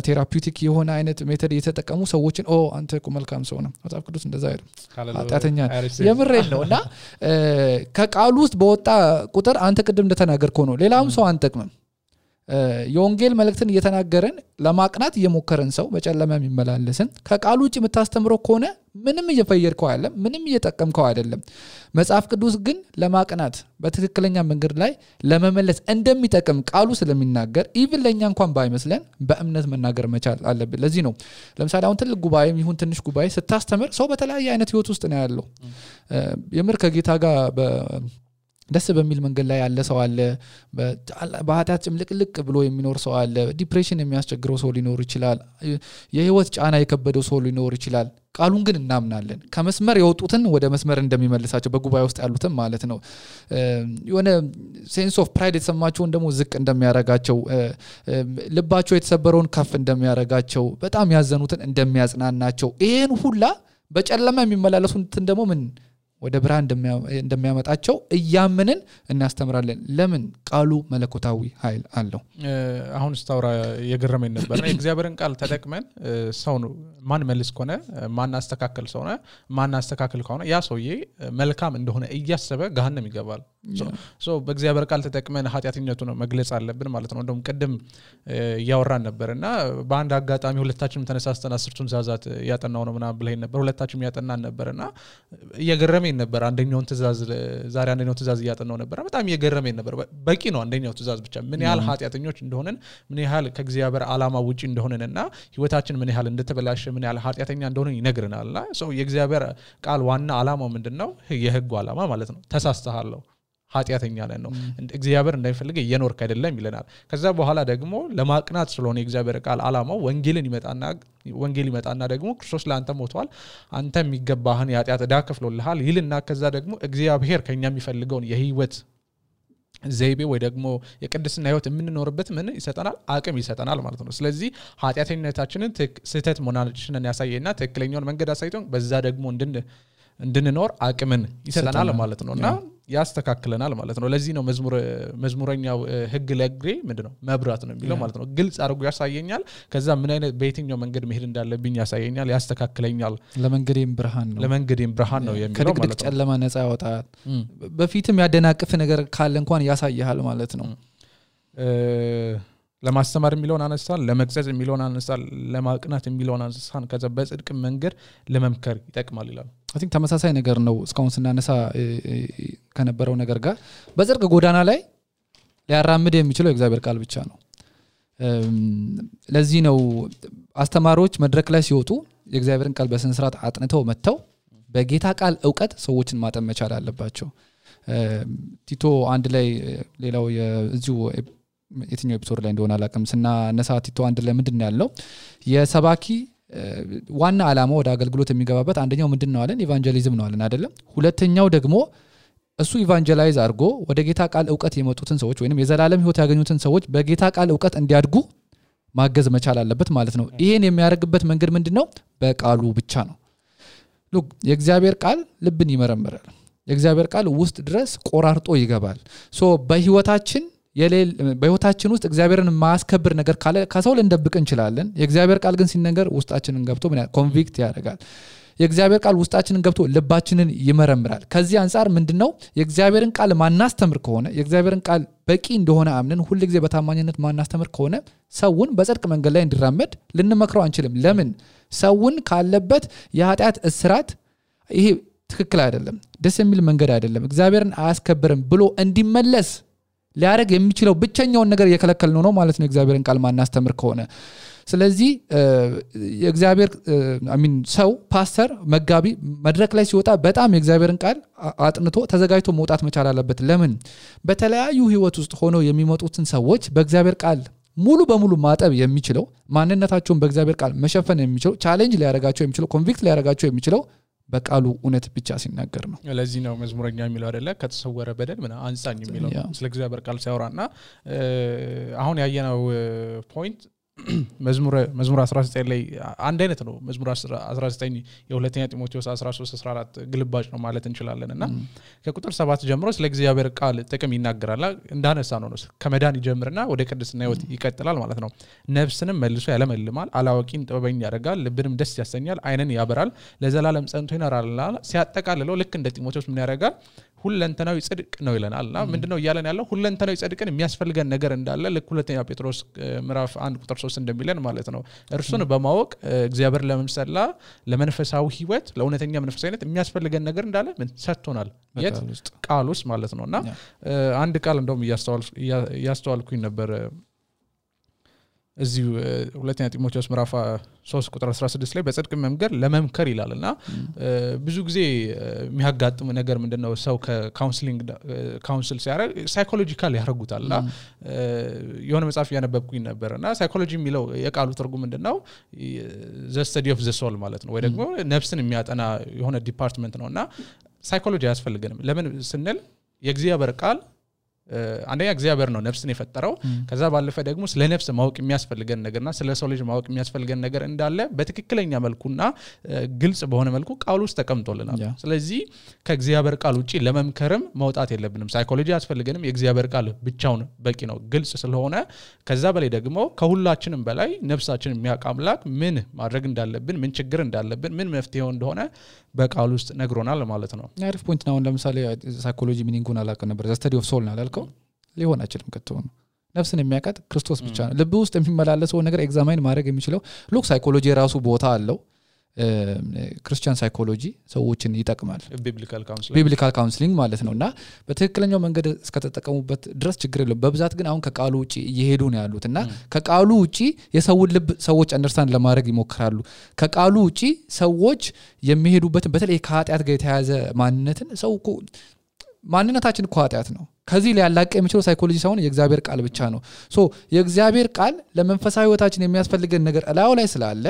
ቴራፒውቲክ የሆነ አይነት ሜተድ እየተጠቀሙ ሰዎችን አንተ እኮ መልካም ሰው ነህ መጽሐፍ ቅዱስ እንደዛ አይደለም ኃጢአተኛ የምሬን ነውና ከቃሉ ውስጥ በወጣ ቁጥር አንተ ቅድም እንደተናገርከው ነው ሌላም ሰው አንጠቅምም የወንጌል መልእክትን እየተናገረን ለማቅናት እየሞከረን ሰው በጨለማ የሚመላለስን ከቃሉ ውጪ የምታስተምረው ከሆነ ምንም እየፈየርከው አይደለም ምንም እየጠቀምከው አይደለም መጽሐፍ ቅዱስ ግን ለማቅናት በትክክለኛ መንገድ ላይ ለመመለስ እንደሚጠቅም ቃሉ ስለሚናገር ኢቭን ለኛ እንኳን ባይመስለን በእምነት መናገር መቻል አለብን ለዚህ ነው ለምሳሌ አሁን ትልቅ ጉባኤም ይሁን ትንሽ ጉባኤ ስታስተምር ሰው በተለያየ አይነት ህይወት ውስጥ ነው ያለው የምር ከጌታ ጋር ደስ በሚል መንገድ ላይ ያለ ሰው አለ በኃጢአት ጭምልቅልቅ ብሎ የሚኖር ሰው አለ ዲፕሬሽን የሚያስቸግረው ሰው ሊኖር ይችላል የህይወት ጫና የከበደው ሰው ሊኖር ይችላል ቃሉን ግን እናምናለን ከመስመር የወጡትን ወደ መስመር እንደሚመልሳቸው በጉባኤ ውስጥ ያሉትን ማለት ነው የሆነ ሴንስ ኦፍ ፕራይድ የተሰማቸው እንደሞ ዝቅ እንደሚያረጋቸው ልባቸው የተሰበረውን ከፍ እንደሚያረጋቸው በጣም ያዘኑትን እንደሚያጽናናቸው ይሄን ሁላ በጨለማ የሚመላለሱትን ደግሞ ምን ወደ ብርሃን እንደሚያመጣቸው እያመንን እናስተምራለን ለምን ቃሉ መለኮታዊ ኃይል አለው አሁን ስታውራ የገረመኝ ነበርና የእግዚአብሔርን ቃል ተጠቅመን ሰው ነው ማን መልስ ከሆነ ማን አስተካከል ሰው ነው ማን አስተካከል ከሆነ ያ ሰውዬ መልካም እንደሆነ እያሰበ ገሃነም ይገባል ሶ በእግዚአብሔር ቃል ተጠቅመን ኃጢያተኛቱ ነው መግለጽ አለብን ማለት ነው እንደውም ቀደም ያወራን ነበርና በአንድ አጋጣሚ ሁለታችንም ተነሳስተን 10ቱን ትእዛዛት ያጠናው ነው ምናምን ብለህ ነበር ሁለታችንም ያጠናን ነበርና እየገረመኝ ነበር አንደኛውን ትእዛዝ ዛሬ አንደኛው ትእዛዝ ያጠናው ነበር በጣም እየገረመኝ ነበር በቂ ነው አንደኛው ትእዛዝ ብቻ ምን ያህል ኃጢያተኞች እንደሆነን ምን ያህል ከእግዚአብሔር ዓላማ ውጪ እንደሆነንና ህይወታችን ምን ያህል እንደተበላሸ ምን ያህል ኃጢያተኛ እንደሆነን ይነግረናልና ሶ የእግዚአብሔር ቃል ዋና ዓላማው ምንድነው የህጉ ዓላማ ማለት ነው ተሳስተሃለሁ ኃጢያተኛ ነን ነው እግዚአብሔር እንደሚፈልግ እየኖርክ አይደለም ይለናል ከዛ በኋላ ደግሞ ለማቅናት ስለሆነ የእግዚአብሔር ቃል ዓላማው ወንጌል ይመጣና ደግሞ ክርስቶስ ለአንተ ሞቷል አንተ የሚገባህን የኃጢያት ዕዳ ከፍሎልሃል ይልና ከዛ ደግሞ እግዚአብሔር ከኛ የሚፈልገውን የህይወት ዘይቤ ወይ ደግሞ የቅድስና ህይወት የምንኖርበት ምን ይሰጠናል አቅም ይሰጠናል ማለት ነው ስለዚህ ኃጢያተኝነታችንን ስህተት መሆናችንን ያሳየና ትክክለኛውን መንገድ አሳይቶን በዛ ደግሞ እንድንኖር አቅምን ይሰጠናል ማለት ነውና ያስተካክለናል ማለት ነው ለዚህ ነው መዝሙረኛው ህግ ለግሬ ምንድነው መብራት ነው የሚለው ማለት ነው ግልጽ አድርጎ ያሳየኛል ከዛ ምን አይነት በየትኛው መንገድ መሄድ እንዳለብኝ ያሳየኛል ያስተካክለኛል ለመንገዴም ብርሃን ነው የሚለው ማለት ነው ጨለማ ነፃ ያወጣል በፊትም ያደናቅፍ ነገር ካለ እንኳን ያሳያል ማለት ነው ለማስተማር የሚለውን አነሳን ለመግጸጽ የሚለውን አነሳን ለማቅናት የሚለውን አነሳን ከዛ በጽድቅ መንገድ ለመምከር ይጠቅማል ይላል I think ተመሳሳይ ነገር ነው እስካሁን ስናነሳ ከነበረው ነገር ጋር በጽድቅ ጎዳና ላይ ሊያራምድ የሚችለው የእግዚአብሔር ቃል ብቻ ነው ለዚህ ነው አስተማሪዎች መድረክ ላይ ሲወጡ የእግዚአብሔርን ቃል በስነ ስርዓት አጥንተው መተው በጌታ ቃል ዕውቀት ሰዎችን ማጠን መቻል አለባቸው ቲቶ አንድ ላይ ሌላው የዚሁ የትኛው ኤፒሶድ ላይ እንደሆነ አላቀም ስናነሳ ቲቶ አንድ ላይ ምንድነው ያለው የሰባኪ ዋና ዓላማ ወደ አገልግሎት የሚገባበት አንደኛው ምንድነው አለን ኢቫንጀሊዝም ነው አለን አይደለም ሁለተኛው ደግሞ እሱ ኢቫንጀላይዝ አድርጎ ወደ ጌታ ቃል ዕውቀት የመጡትን ሰዎች ወይንም የዘላለም ህይወት ያገኙትን ሰዎች በጌታ ቃል ዕውቀት እንዲያድጉ ማገዝ መቻል አለበት ማለት ነው ይሄን የሚያደርግበት መንገድ ምንድነው በቃሉ ብቻ ነው ሉክ የእግዚአብሔር ቃል ልብን ይመረምራል የእግዚአብሔር ቃል ውስጥ ድረስ ቆራርጦ ይገባል ሶ በህይወታችን ውስጥ እግዚአብሔርን ማስከበር ነገር ካለ ከሰው ልንደብቅ እንችላለን የእግዚአብሔር ቃል ግን ሲነገር ውስጣችንን ገብቶ ምን ኮንቪክት ያደርጋል የእግዚአብሔር ቃል ውስጣችንን ገብቶ ልባችንን ይመረምራል ከዚህ አንፃር ምንድነው የእግዚአብሔርን ቃል ማናስተምር ከሆነ የእግዚአብሔርን ቃል በቂ እንደሆነ አምነን ሁሉ ጊዜ በታማኝነት ማናስተምር ከሆነ ሰውን በጽድቅ መንገድ ላይ እንዲራመድ ልንመክረው አንችልም ለምን ሰውን ካለበት የኃጢአት እስራት ይሄ ትክክል አይደለም ደስ የሚል መንገድ አይደለም እግዚአብሔርን አያስከብርም ብሎ እንዲመለስ ሊያረግ የሚችለው ብቸኛው ነገር እየከለከልነው ነው ማለት ነው እግዚአብሔርን ቃል ማናስተምር ከሆነ ስለዚህ የእግዚአብሔር ሰው ፓስተር መጋቢ መድረክ ላይ ሲወጣ በጣም የእግዚአብሔርን ቃል አጥንቶ ተዘጋጅቶ መውጣት መቻል አለበት ለምን በተለያዩ ህይወት ውስጥ ሆኖ የሚመጡትን ሰዎች በእግዚአብሔር ቃል ሙሉ በሙሉ ማጠብ የሚችለው ማንነታቸውን በእግዚአብሔር ቃል መሸፈን የሚችለው ቻሌንጅ ሊያረጋቸው የሚችለው ኮንቪክት ሊያረጋቸው የሚችለው በቃሉ እውነት ብቻ ሲናገር ነው ለዚህ ነው መዝሙረኛ የሚለው አይደለ ከተሰወረ በደል ምን አንጻኝ የሚለው ስለ እግዚአብሔር ቃል ሲያወራና አሁን ያየነው ፖይንት መዝሙር 19 ላይ አንድ አይነት ነው መዝሙር 19 የሁለተኛ ጢሞቴዎስ 13-14 ግልባጭ ነው ማለት እንችላለንና ከቁጥር 7 ጀምሮ ስለ እግዚአብሔር ቃል ጥቅም ይናገራል እንዳነሳ ነው ከመዳን ይጀምርና ወደ ቅድስና ህይወት ይቀጥላል ማለት ነው ነፍስንም መልሶ ያለመልማል አላዋቂን ጥበበኛ ያደርጋል ልብንም ደስ ያሰኛል አይንን ያበራል ለዘላለም ጸንቶ ይኖራል ሲያጠቃልለው ልክ እንደ ጢሞቴዎስ ምን ያደርጋል ሁለንተናዊ ጽድቅ ነው ይለናልና ምንድነው ይያለን ያለው ሁለንተናዊ ጽድቅን የሚያስፈልገን ነገር እንዳለ ልክ ሁለተኛ ጴጥሮስ ምዕራፍ 1 ቁጥር 3 እንደሚለን ማለት ነው እርሱን በማወቅ እግዚአብሔር ለመምሰላ ለመንፈሳዊ ህይወት ለእውነተኛ መንፈሳዊነት የሚያስፈልገን ነገር እንዳለ ምን ሰጥቶናል የት ቃል ውስጥ ማለት ነውና አንድ ቃል እንደውም ያስተዋልኩኝ ነበር እዚሁ ሁለተኛ ጢሞቴዎስ ምዕራፍ 3 ቁጥር 16 ላይ በጽድቅ መምከር ለመምከር ይላልና ብዙ ጊዜ የሚያጋጥም ነገር ምንድነው ሰው ከካውንስሊንግ ካውንስል ሲያደርግ ሳይኮሎጂካል ያደርጉታልና የሆነ መጽሐፍ ያነበብኩኝ ነበርና ሳይኮሎጂ የሚለው የቃሉ ትርጉም ምንድነው the study of the soul ማለት ነው ወይ ደግሞ ነፍስን የሚያጠና የሆነ ዲፓርትመንት ነውና ሳይኮሎጂ ያስፈልገንም ለምን ስንል የእግዚአብሔር ቃል አንደኛ እግዚአብሔር ነው ነፍስን የፈጠረው ከዛ ባለፈ ደግሞ ስለ ነፍስ ማወቅ የሚያስፈልገን ነገርና ስለ ሰው ልጅ ማወቅ የሚያስፈልገን ነገር እንዳለ በትክክለኛ መልኩና ግልጽ በሆነ መልኩ ቃሉ ውስጥ ተቀምጦልናል ስለዚህ ከእግዚአብሔር ቃል ውጪ ለመምከርም መውጣት የለብንም ሳይኮሎጂ ያስፈልገንም የእግዚአብሔር ቃል ብቻውን በቂ ነው ግልጽ ስለሆነ ከዛ በላይ ደግሞ ከሁላችንም በላይ ነፍሳችንን የሚያውቅ አምላክ ምን ማድረግ እንዳለብን ምን ችግር እንዳለብን ምን መፍትሄው እንደሆነ በቃሉ ውስጥ ነግሮናል ማለት ነው አሪፍ ፖይንት ነው ለምሳሌ ሳይኮሎጂ ሚኒንጉን አላውቅም ነበር the study of soul ናላልከው ሊሆን አይችልም ከተው ነፍስን የሚያውቃት ክርስቶስ ብቻ ነው ልብ ውስጥ የሚመላለሰው ነገር ኤግዛማይን ማድረግ የሚችለው ሉክ ሳይኮሎጂ ራሱ ቦታ አለው ክርስቲያን ሳይኮሎጂ ሰዎችን ይጠቅማል ቢብሊካል ካውንስሊንግ ማለት ነውና በትክክለኛው መንገድ እስከተጠቀሙበት ድረስ ችግር የለም በብዛት ግን አሁን ከቃሉ ውጪ እየሄዱ ነው ያሉትና ከቃሉ ውጪ የሰውን ልብ ሰዎች አንደርስታንድ ለማድረግ ይሞክራሉ ከቃሉ ውጪ ሰዎች የሚሄዱበት በተለይ ከኃጢያት ጋር የተያያዘ ማንነትን ሰው ማንነታችን እኮ ኃጢያት ነው ከዚህ ሊያላቀ የሚችለው ሳይኮሎጂ ሳይሆን የእግዚአብሔር ቃል ብቻ ነው ሶ የእግዚአብሔር ቃል ለመንፈሳዊ ህይወታችን የሚያስፈልገን ነገር እላው ላይ ስላለ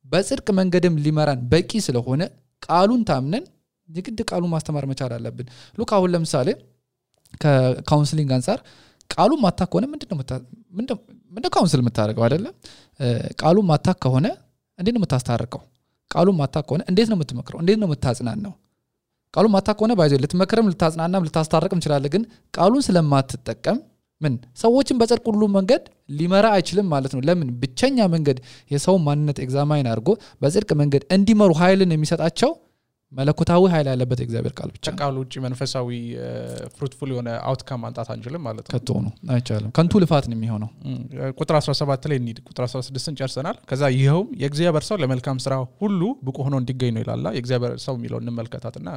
በጽድቅ መንገድም ሊመራን በቂ ስለሆነ ቃሉን ታምነን የግድ ቃሉን ማስተማር መቻል አለብን ሉክ አሁን ለምሳሌ ከካውንስሊንግ አንፃር ቃሉን ማታክ ከሆነ ምንድነው ካውንስል የምታደርገው አይደለ ቃሉን ማታክ ከሆነ እንዴት ነው የምታስታርቀው ቃሉን ማታክ ከሆነ እንዴት ነው የምትመክረው እንዴት ነው የምታጽናናው ቃሉን ማታክ ከሆነ ባይዘ ልትመክረም ልታጽናናም ልታስታርቅም ይችላል ግን ቃሉን ስለማትጠቀም ምን ሰዎችን በጽድቅ ሁሉ መንገድ ሊመራ አይችልም ማለት ነው ለምን ብቸኛ መንገድ የሰው ማንነት ኤግዛማይን አድርጎ በጽድቅ መንገድ እንዲመሩ ኃይልን የሚሰጣቸው መለኮታዊ ኃይል ያለበት እግዚአብሔር ቃል ብቻ ቃሉ ውጪ መንፈሳዊ ፍሩትፉል የሆነ አውትካም ማንጣት አንችልም ማለት ነው ከቶ ነው አይቻልም ከንቱ ልፋት ነው የሚሆነው ቁጥር 17 ላይ እንሂድ ቁጥር 16ን ጨርሰናል ከዛ ይሄውም የእግዚአብሔር ሰው ለመልካም ስራ ሁሉ ብቁ ሆኖ እንዲገኝ ነው ይላል የእግዚአብሔር ሰው የሚለው እንመልከታትና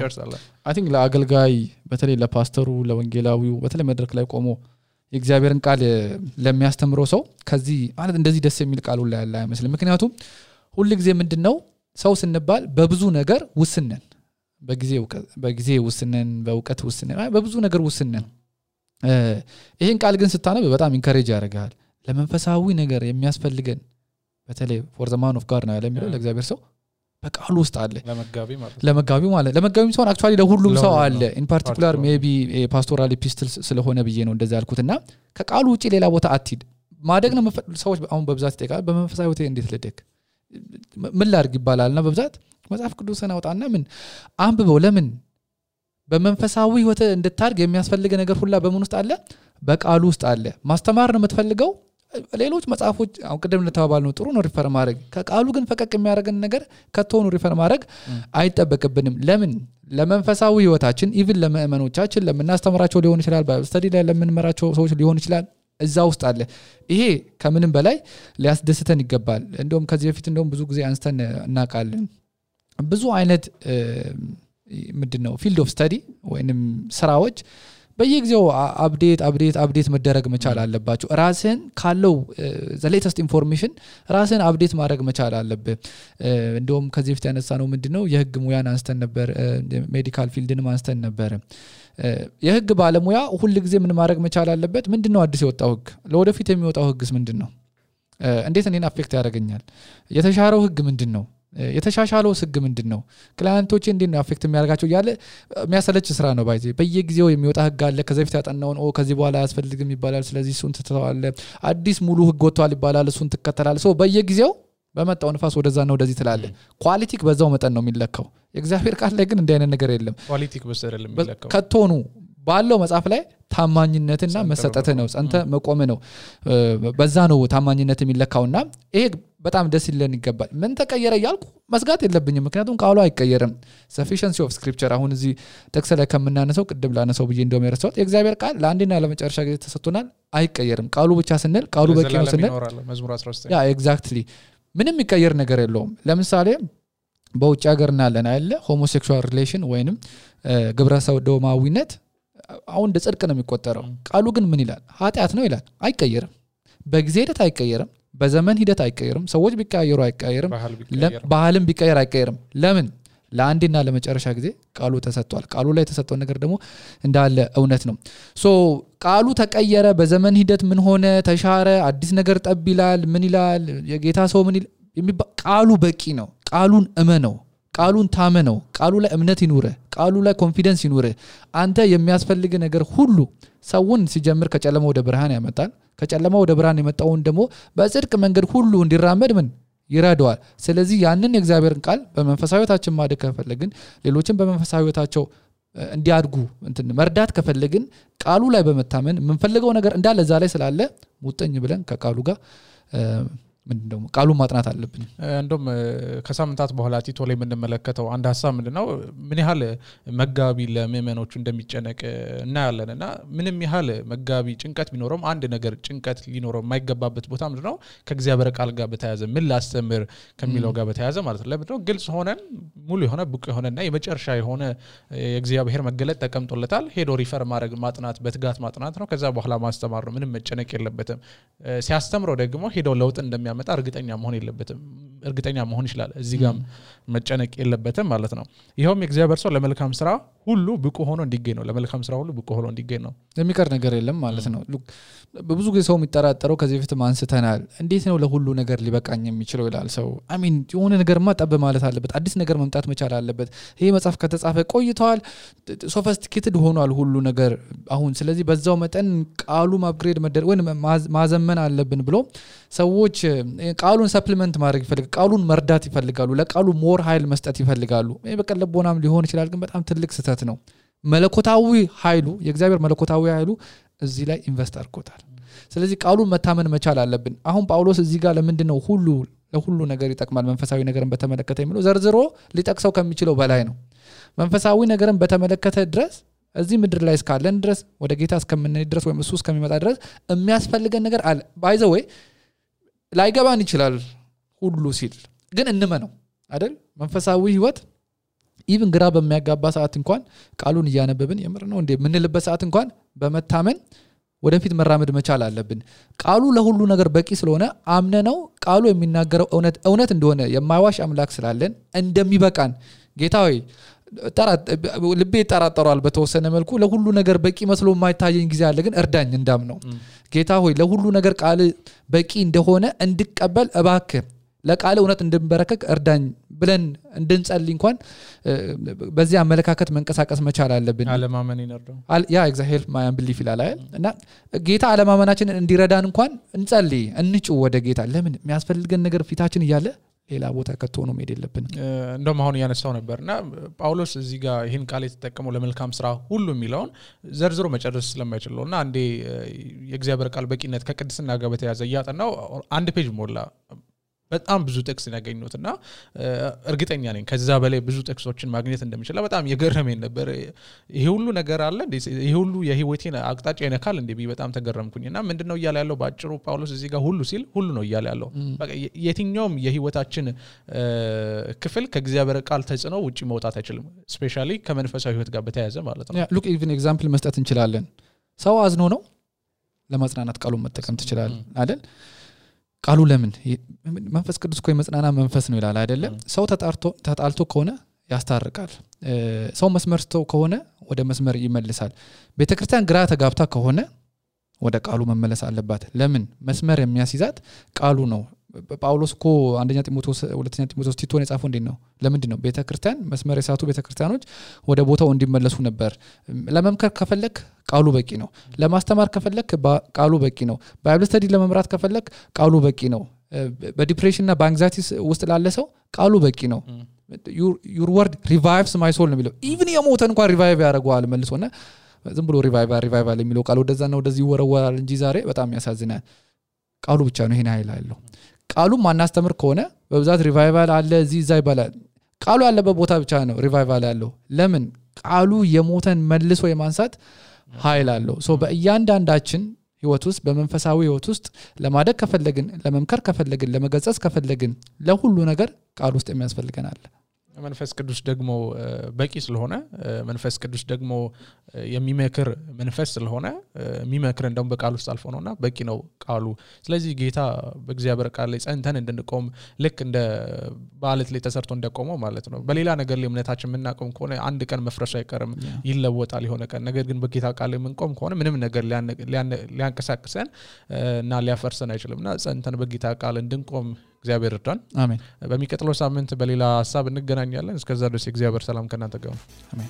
ጨርሰናል አይ ቲንክ ለአገልጋይ በተለይ ለፓስተሩ ለወንጌላዊው በተለይ መድረክ ላይ ቆሞ የእግዚአብሔርን ቃል ለሚያስተምረው ሰው ከዚህ ማለት እንደዚህ ደስ የሚል ቃል ሁሉ ያለ አይመስልም ምክንያቱም ሁሉ ጊዜ ምንድነው ሰው ስንባል በብዙ ነገር ውስነን በጊዜ ውስነን በእውቀት ውስነን በብዙ ነገር ውስነን ይሄን ቃል ግን ስታነብ በጣም ኢንካሬጅ ያደርጋል ለመንፈሳዊ ነገር የሚያስፈልገን በተለይ ፎር ዘ ማን ኦፍ ጋድ ነው ያለ የሚለው ለእግዚአብሔር ሰው በቃሉ ውስጥ አለ ለመጋቢም ሰው አክቹአሊ ለሁሉም ሰው አለ ኢን ፓርቲኩላር ሜቢ ፓስቶራል ኤፒስትልስ ስለሆነ ብዬ ነው እንደዛ ያልኩትና ከቃሉ ውጪ ሌላ ቦታ አትሂድ ማደግ ነው ሰዎች አሁን በብዛት ይጠይቃል በመንፈሳዊ ህይወት እንዴት ልደግ ምን ላድርግ ይባላልና በብዛት መጽሐፍ ቅዱስን አውጣና ምን አንብበው ለምን በመንፈሳዊ ህይወት እንድታድግ የሚያስፈልግ ነገር ሁላ በምን ውስጥ አለ በቃሉ ውስጥ አለ ማስተማር ነው የምትፈልገው ሌሎች መጽሐፎች አሁን ቀደም ለተባባል ነው ጥሩ ነው ሪፈር ማድረግ ከቃሉ ግን ፈቀቅ የሚያደርገን ነገር ከተሆኑ ሪፈር ማድረግ አይጠበቅብንም ለምን ለመንፈሳዊ ህይወታችን ኢቭን ለምእመኖቻችን ለምናስተምራቸው ሊሆን ይችላል በስተዲ ላይ ለምንመራቸው ሰዎች ሊሆን ይችላል እዛ ውስጥ አለ ይሄ ከምንም በላይ ሊያስደስተን ይገባል እንደውም ከዚህ በፊት እንደውም ብዙ ጊዜ አንስተን እናቃለን ብዙ አይነት ምንድነው ፊልድ ኦፍ ስተዲ ወይንም ስራዎች በየጊዜው አፕዴት መደረግ መቻል አለባቸው ራስን ካለው the latest information ራስን አፕዴት ማድረግ መቻል አለበት እንደውም ከዚህ በፊት ያነሳ ነው ምንድነው የህግ ሙያን አንስተን ነበር ሜዲካል ፊልድንም አንስተን ነበር የህግ ባለሙያ ሁሉ ጊዜ ምን ማድረግ መቻል አለበት ምንድነው አዲስ የወጣው ህግ ለወደፊት የሚወጣው ህግስ ምንድነው እንዴት እኔን አፌክት ያደርገኛል የተሻረው ህግ ምንድነው የተሻሻለው ህግ ምንድነው ክላይንቶች እንዴት ነው አፌክት የሚያደርጋቸው ያለ የሚያሰለች ስራ ነው ባይዜ በየጊዜው የሚወጣ ህግ አለ ከዚህ በፊት ያጠናውን ከዚህ በኋላ ያስፈልግም ይባላል ስለዚህ እሱን ተተዋለ አዲስ ሙሉ ህግ ወጥቷል ይባላል እሱን ተከተላል ሶ በየጊዜው በመጣው ንፋስ ወደዛና ወደዚህ ትላለ ኳሊቲክ በዛው መጠን ነው የሚለካው የእግዚአብሔር ቃል ላይ ግን እንደ አይነት ነገር የለም ኳሊቲክ በሰረለም የሚለካው ከቶኑ ባለው መጽሐፍ ላይ ታማኝነትና መሰጠት ነው ጸንተ መቆም ነው በዛ ነው ታማኝነት የሚለካውና ይሄ በጣም ደስ ይለን ይገባል ምን ተቀየረ ያልኩ መስጋት የለብኝም ምክንያቱም ቃሉ አይቀየርም sufficiency of scripture አሁን እዚህ ተክሰ ላይ ከመናነሰው ቅድም ላነሰው ብዬ እንደውም የረሳሁት የእግዚአብሔር ቃል ለአንዴና ለመጨረሻ ጊዜ ተሰጥቶናል አይቀየርም ቃሉ ብቻ ስንል ቃሉ በቂ ነው ስንል መዝሙር 19 ያ ኤግዛክትሊ ምንም የሚቀየር ነገር የለውም ለምሳሌ በውጭ ሀገር እናለን አይደለ ሆሞሴክሹዋል ሪሌሽን ወይንም ግብረ ሰዶማዊነት አሁን እንደ ጽድቅ ነው የሚቆጠረው ቃሉ ግን ምን ይላል ኃጢያት ነው ይላል አይቀየርም በጊዜ ሂደት አይቀየርም በዘመን ሂደት አይቀየርም ሰዎች ቢቀያየሩ አይቀየርም ባህልም ቢቀየር አይቀየርም ለምን ለአንዴና ለመጨረሻ ጊዜ ቃሉ ተሰጥቷል ቃሉ ላይ የተሰጠው ነገር ደግሞ እንዳለ እውነት ነው ሶ ቃሉ ተቀየረ በዘመን ሂደት ምን ሆነ ተሻረ አዲስ ነገር ጠብ ይላል ምን ይላል የጌታ ሰው ምን ይላል ቃሉ በቂ ነው ቃሉን እመነው ቃሉን ታመነው ቃሉ ላይ እምነት ይኑር ቃሉ ላይ ኮንፊደንስ ይኑር አንተ የሚያስፈልግ ነገር ሁሉ ሰውን ሲጀምር ከጨለማ ወደ ብርሃን ያመጣል ከጨለማ ወደ ብርሃን የመጣውን ደግሞ በጽድቅ መንገድ ሁሉ እንዲራመድ ምን ይራደዋል ስለዚህ ያንን የእግዚአብሔርን ቃል በመንፈሳዊታችን ማደግ ከፈለግን ሌሎችን በመንፈሳዊታቸው እንዲያድጉ መርዳት ከፈለግን ቃሉ ላይ በመታመን ምንፈልገው ነገር እንዳለ እዛ ላይ ስላለ ሙጥኝ ብለን ከቃሉ ጋር ምንድነው ቃሉ ማጥናት አለብን እንደም ከሳምንታት በኋላ ቲቶ ላይ ምንመለከተው አንድ ሐሳብ ምንድነው ምን ያህል መጋቢ ለምእመኖቹ እንደሚጨነቅ እናያለንና ምንም ያህል መጋቢ ጭንቀት ቢኖርም አንድ ነገር ጭንቀት ሊኖረው የማይገባበት ቦታ ምንድነው ከእግዚአብሔር ቃል ጋር በተያያዘ ምን ላስተምር ከሚለው ጋር በተያያዘ ማለት ነው ለምንድነው ግልጽ ሆነን ሙሉ የሆነ ብቁ የሆነና የመጨረሻ የሆነ የእግዚአብሔር መገለጥ ተቀምጦለታል ሄዶ ሪፈር ማድረግ ማጥናት በትጋት ማጥናት ነው ከዛ በኋላ ማስተማር ነው ምንም መጨነቅ የለበትም ሲያስተምረው ደግሞ ሄዶ ለውጥ እንደሚያመጣ እርግጠኛ መሆን የለበትም እርግጠኛ መሆን ይችላል እዚህ ጋር መጨነቅ የለበትም ማለት ነው ይሄውም የእግዚአብሔር ሰው ለመልካም ስራ ሁሉ ብቁ ሆኖ እንዲገኝ ነው ለመልካም ስራ ሁሉ ብቁ ሆኖ እንዲገኝ ነው የሚቀር ነገር የለም ማለት ነው በብዙ ጊዜ ሰው የሚጠራጠረው ከዚህ በፊት ማንስተናል እንዴት ነው ለሁሉ ነገር ሊበቃኝ የሚችለው ይላል ሰው አሚን የሆነ ነገርማ ጠብ ማለት አለበት አዲስ ነገር መምጣት መቻል አለበት ይሄ መጽሐፍ ከተጻፈ ቆይቷል ሶፊስቲኬትድ ሆኗል ሁሉ ነገር አሁን ስለዚህ በዛው መጠን ቃሉ አፕግሬድ መደረግ ወይ ማዘመን አለብን ብሎ ሰዎች ቃሉን ሰፕሊመንት ማድረግ ይፈልጋሉ ቃሉን መርዳት ይፈልጋሉ ለቃሉ ሞር ኃይል መስጠት ይፈልጋሉ ይሄ በቀለቦናም ሊሆን ይችላል ግን በጣም ትልቅ ስህተት ነው መለኮታዊ ኃይሉ የእግዚአብሔር መለኮታዊ ኃይሉ እዚህ ላይ ኢንቨስት አድርጎታል ስለዚህ ቃሉን መታመን መቻል አለብን አሁን ጳውሎስ እዚህ ጋር ለምንድነው ሁሉ ለሁሉ ነገር ይጠቅማል መንፈሳዊ ነገርን በተመለከተ የሚለው ዘርዝሮ ሊጠቅሰው ከሚችለው በላይ ነው መንፈሳዊ ነገርን በተመለከተ ድረስ እዚህ ምድር ላይ እስካለን ድረስ ወደ ጌታ እስከምንሄድ ድረስ ወይም እሱ እስከሚመጣ ድረስ የሚያስፈልገን ነገር አለ ባይ ዘ ዌይ ላይገባን ይችላል ሁሉ ሲል ግን እንመነው አይደል መንፈሳዊ ህይወት ኢቭን ግራ በሚያጋባ ሰዓት እንኳን ቃሉን እያነበብን የምር ነው እንዴ ምንልበት ሰዓት እንኳን በመታመን ወደፊት መራመድ መቻል አለብን ቃሉ ለሁሉ ነገር በቂ ስለሆነ አምነነው ቃሉ የሚናገረው እውነት እንደሆነ የማይዋሽ አምላክ ስላለን እንደሚበቃን ጌታዬ ልቤ ተራጠሯል በተወሰነ መልኩ ለሁሉ ነገር በቂ መስሎ የማይታየኝ ጊዜ አለ ግን እርዳኝ እንዳምነው ጌታ ሆይ ለሁሉ ነገር ቃል በቂ እንደሆነ እንድቀበል እባክህ ለቃል እውነት እንድንበረከክ እርዳኝ ብለን እንድንጸልይ እንኳን በዚህ አመለካከት መንቀሳቀስ መቻል አለብን አለማመን ይነርደው ያ ኤግዛክትሊ ማይ አንቢሊፍ ይላል እና ጌታ አለማመናችንን እንዲረዳን እንኳን እንጸልይ እንጩ ወደ ጌታ ለምን የሚያስፈልገን ነገር ፊታችን እያለ ሌላ ቦታ ከተሆነ መሄድ የለብንም እንደውም አሁን ያነሳው ነበርና ጳውሎስ እዚህ ጋር ይሄን ቃል የተጠቀመው ለመልካም ስራ ሁሉ የሚለውን ዘርዝሮ መጨረስ ስለማይችልና አንዴ የእግዚአብሔር ቃል በቂነት ከቅድስና ጋር በተያያዘ ያጠናው አንድ ፔጅ ሞላ በጣም ብዙ ጥቅስ ያገኙትና እርግጠኛ ነኝ ከዛ በላይ ብዙ ጥቅሶችን ማግኘት እንደምችል በጣም የገረመኝ ነበር ይሄ ሁሉ ነገር አለ ይሄ ሁሉ የህይወቴን አቅጣጫ ይነካል እንዴ በጣም ተገረምኩኝና ምንድነው ይያለ ያለው ባጭሩ ጳውሎስ እዚህ ጋር ሁሉ ሲል ሁሉ ነው ይያለ ያለው በቃ የትኛውም የህይወታችን ክፍል ከእግዚአብሔር ቃል ተጽኖ ውጪ መውጣት አይችልም ስፔሻሊ ከመንፈሳዊ ህይወት ጋር በተያያዘ ማለት ነው ሉክ ኢቭን ኤግዛምፕል መስጠት እንችላለን ሰው አዝኖ ነው ለማጽናናት ቃሉን መጠቀም ትችላል አይደል ቃሉ ለምን መንፈስ ቅዱስ ኮይ መጽናና መንፈስ ነው ይላል አይደለ ሰው ተጣልቶ ከሆነ ያስታርቃል ሰው መስመር ስቶ ከሆነ ወደ መስመር ይመልሳል ቤተክርስቲያን ግራ ተጋብታ ከሆነ ወደ ቃሉ መመለስ አለባት ለምን መስመር የሚያስይዛት ቃሉ ነው ጳውሎስ እኮ አንደኛ ጢሞቴዎስ ሁለተኛ ጢሞቴዎስ ቲቶን የጻፈው እንዴ ነው ለምንድን ነው ቤተክርስቲያን መስመር የሳቱ ቤተክርስቲያኖች ወደ ቦታው እንዲመለሱ ነበር ለመምከር ከፈለክ ቃሉ በቂ ነው ለማስተማር ከፈለክ ቃሉ በቂ ነው ባይብል ስተዲ ለመምራት ከፈለክ ቃሉ በቂ ነው በዲፕሬሽን እና በአንግዛይቲ ውስጥ ላለ ሰው ቃሉ በቂ ነው your word revives my soul ነው የሚለው even የሞተ እንኳን ሪቫይቭ ያደርገዋል መልሶና ዝም ብሎ ሪቫይቫል የሚለው ቃሉ ወደዛና ወደዚህ ይወረወራል እንጂ ዛሬ በጣም ያሳዝናል ቃሉ ብቻ ነው ይሄን ኃይል አለው ቃሉ ማናስተምር ከሆነ በብዛት ሪቫይቫል አለ እዚህ ዛይ ባላል ቃሉ ያለበት ቦታ ብቻ ነው ሪቫይቫል ያለው ለምን ቃሉ የሞተን መልሶ የማንሳት ኃይል አለው ሶ በእያንዳንዳችን ህይወት ውስጥ በመንፈሳዊ ህይወት ውስጥ ለማደግ ከፈለግን ለመምከር ከፈለግን ለመገጸጽ ከፈለግን ለሁሉ ነገር ቃል ውስጥ የሚያስፈልገናል መንፈስ ቅዱስ ደግሞ በቂ ስለሆነ መንፈስ ቅዱስ ደግሞ የሚመክር መንፈስ ስለሆነ የሚመክር እንደውም በቃል ውስጥ አልፎ ነውና በቂ ነው ቃሉ ስለዚህ ጌታ በእግዚአብሔር ቃል ላይ ጸንተን እንድንቆም ልክ እንደ በአለት ላይ ተሰርቶ እንደቆመው ማለት ነው በሌላ ነገር ላይ እምነታችን የምናቆም ከሆነ አንድ ቀን መፍረሱ አይቀርም ይለወጣል የሆነ ቀን ነገር ግን በጌታ ቃል ላይ የምንቆም ከሆነ ምንም ነገር ሊያንቀሳቅሰን እና ሊያፈርሰን አይችልምና ጸንተን በጌታ ቃል እንድንቆም እግዚአብሔር ይርዳን አሜን በሚቀጥለው ሳምንት በሌላ ሐሳብ እንገናኛለን እስከዛ ድረስ እግዚአብሔር ሰላም ከናንተ ጋር አሜን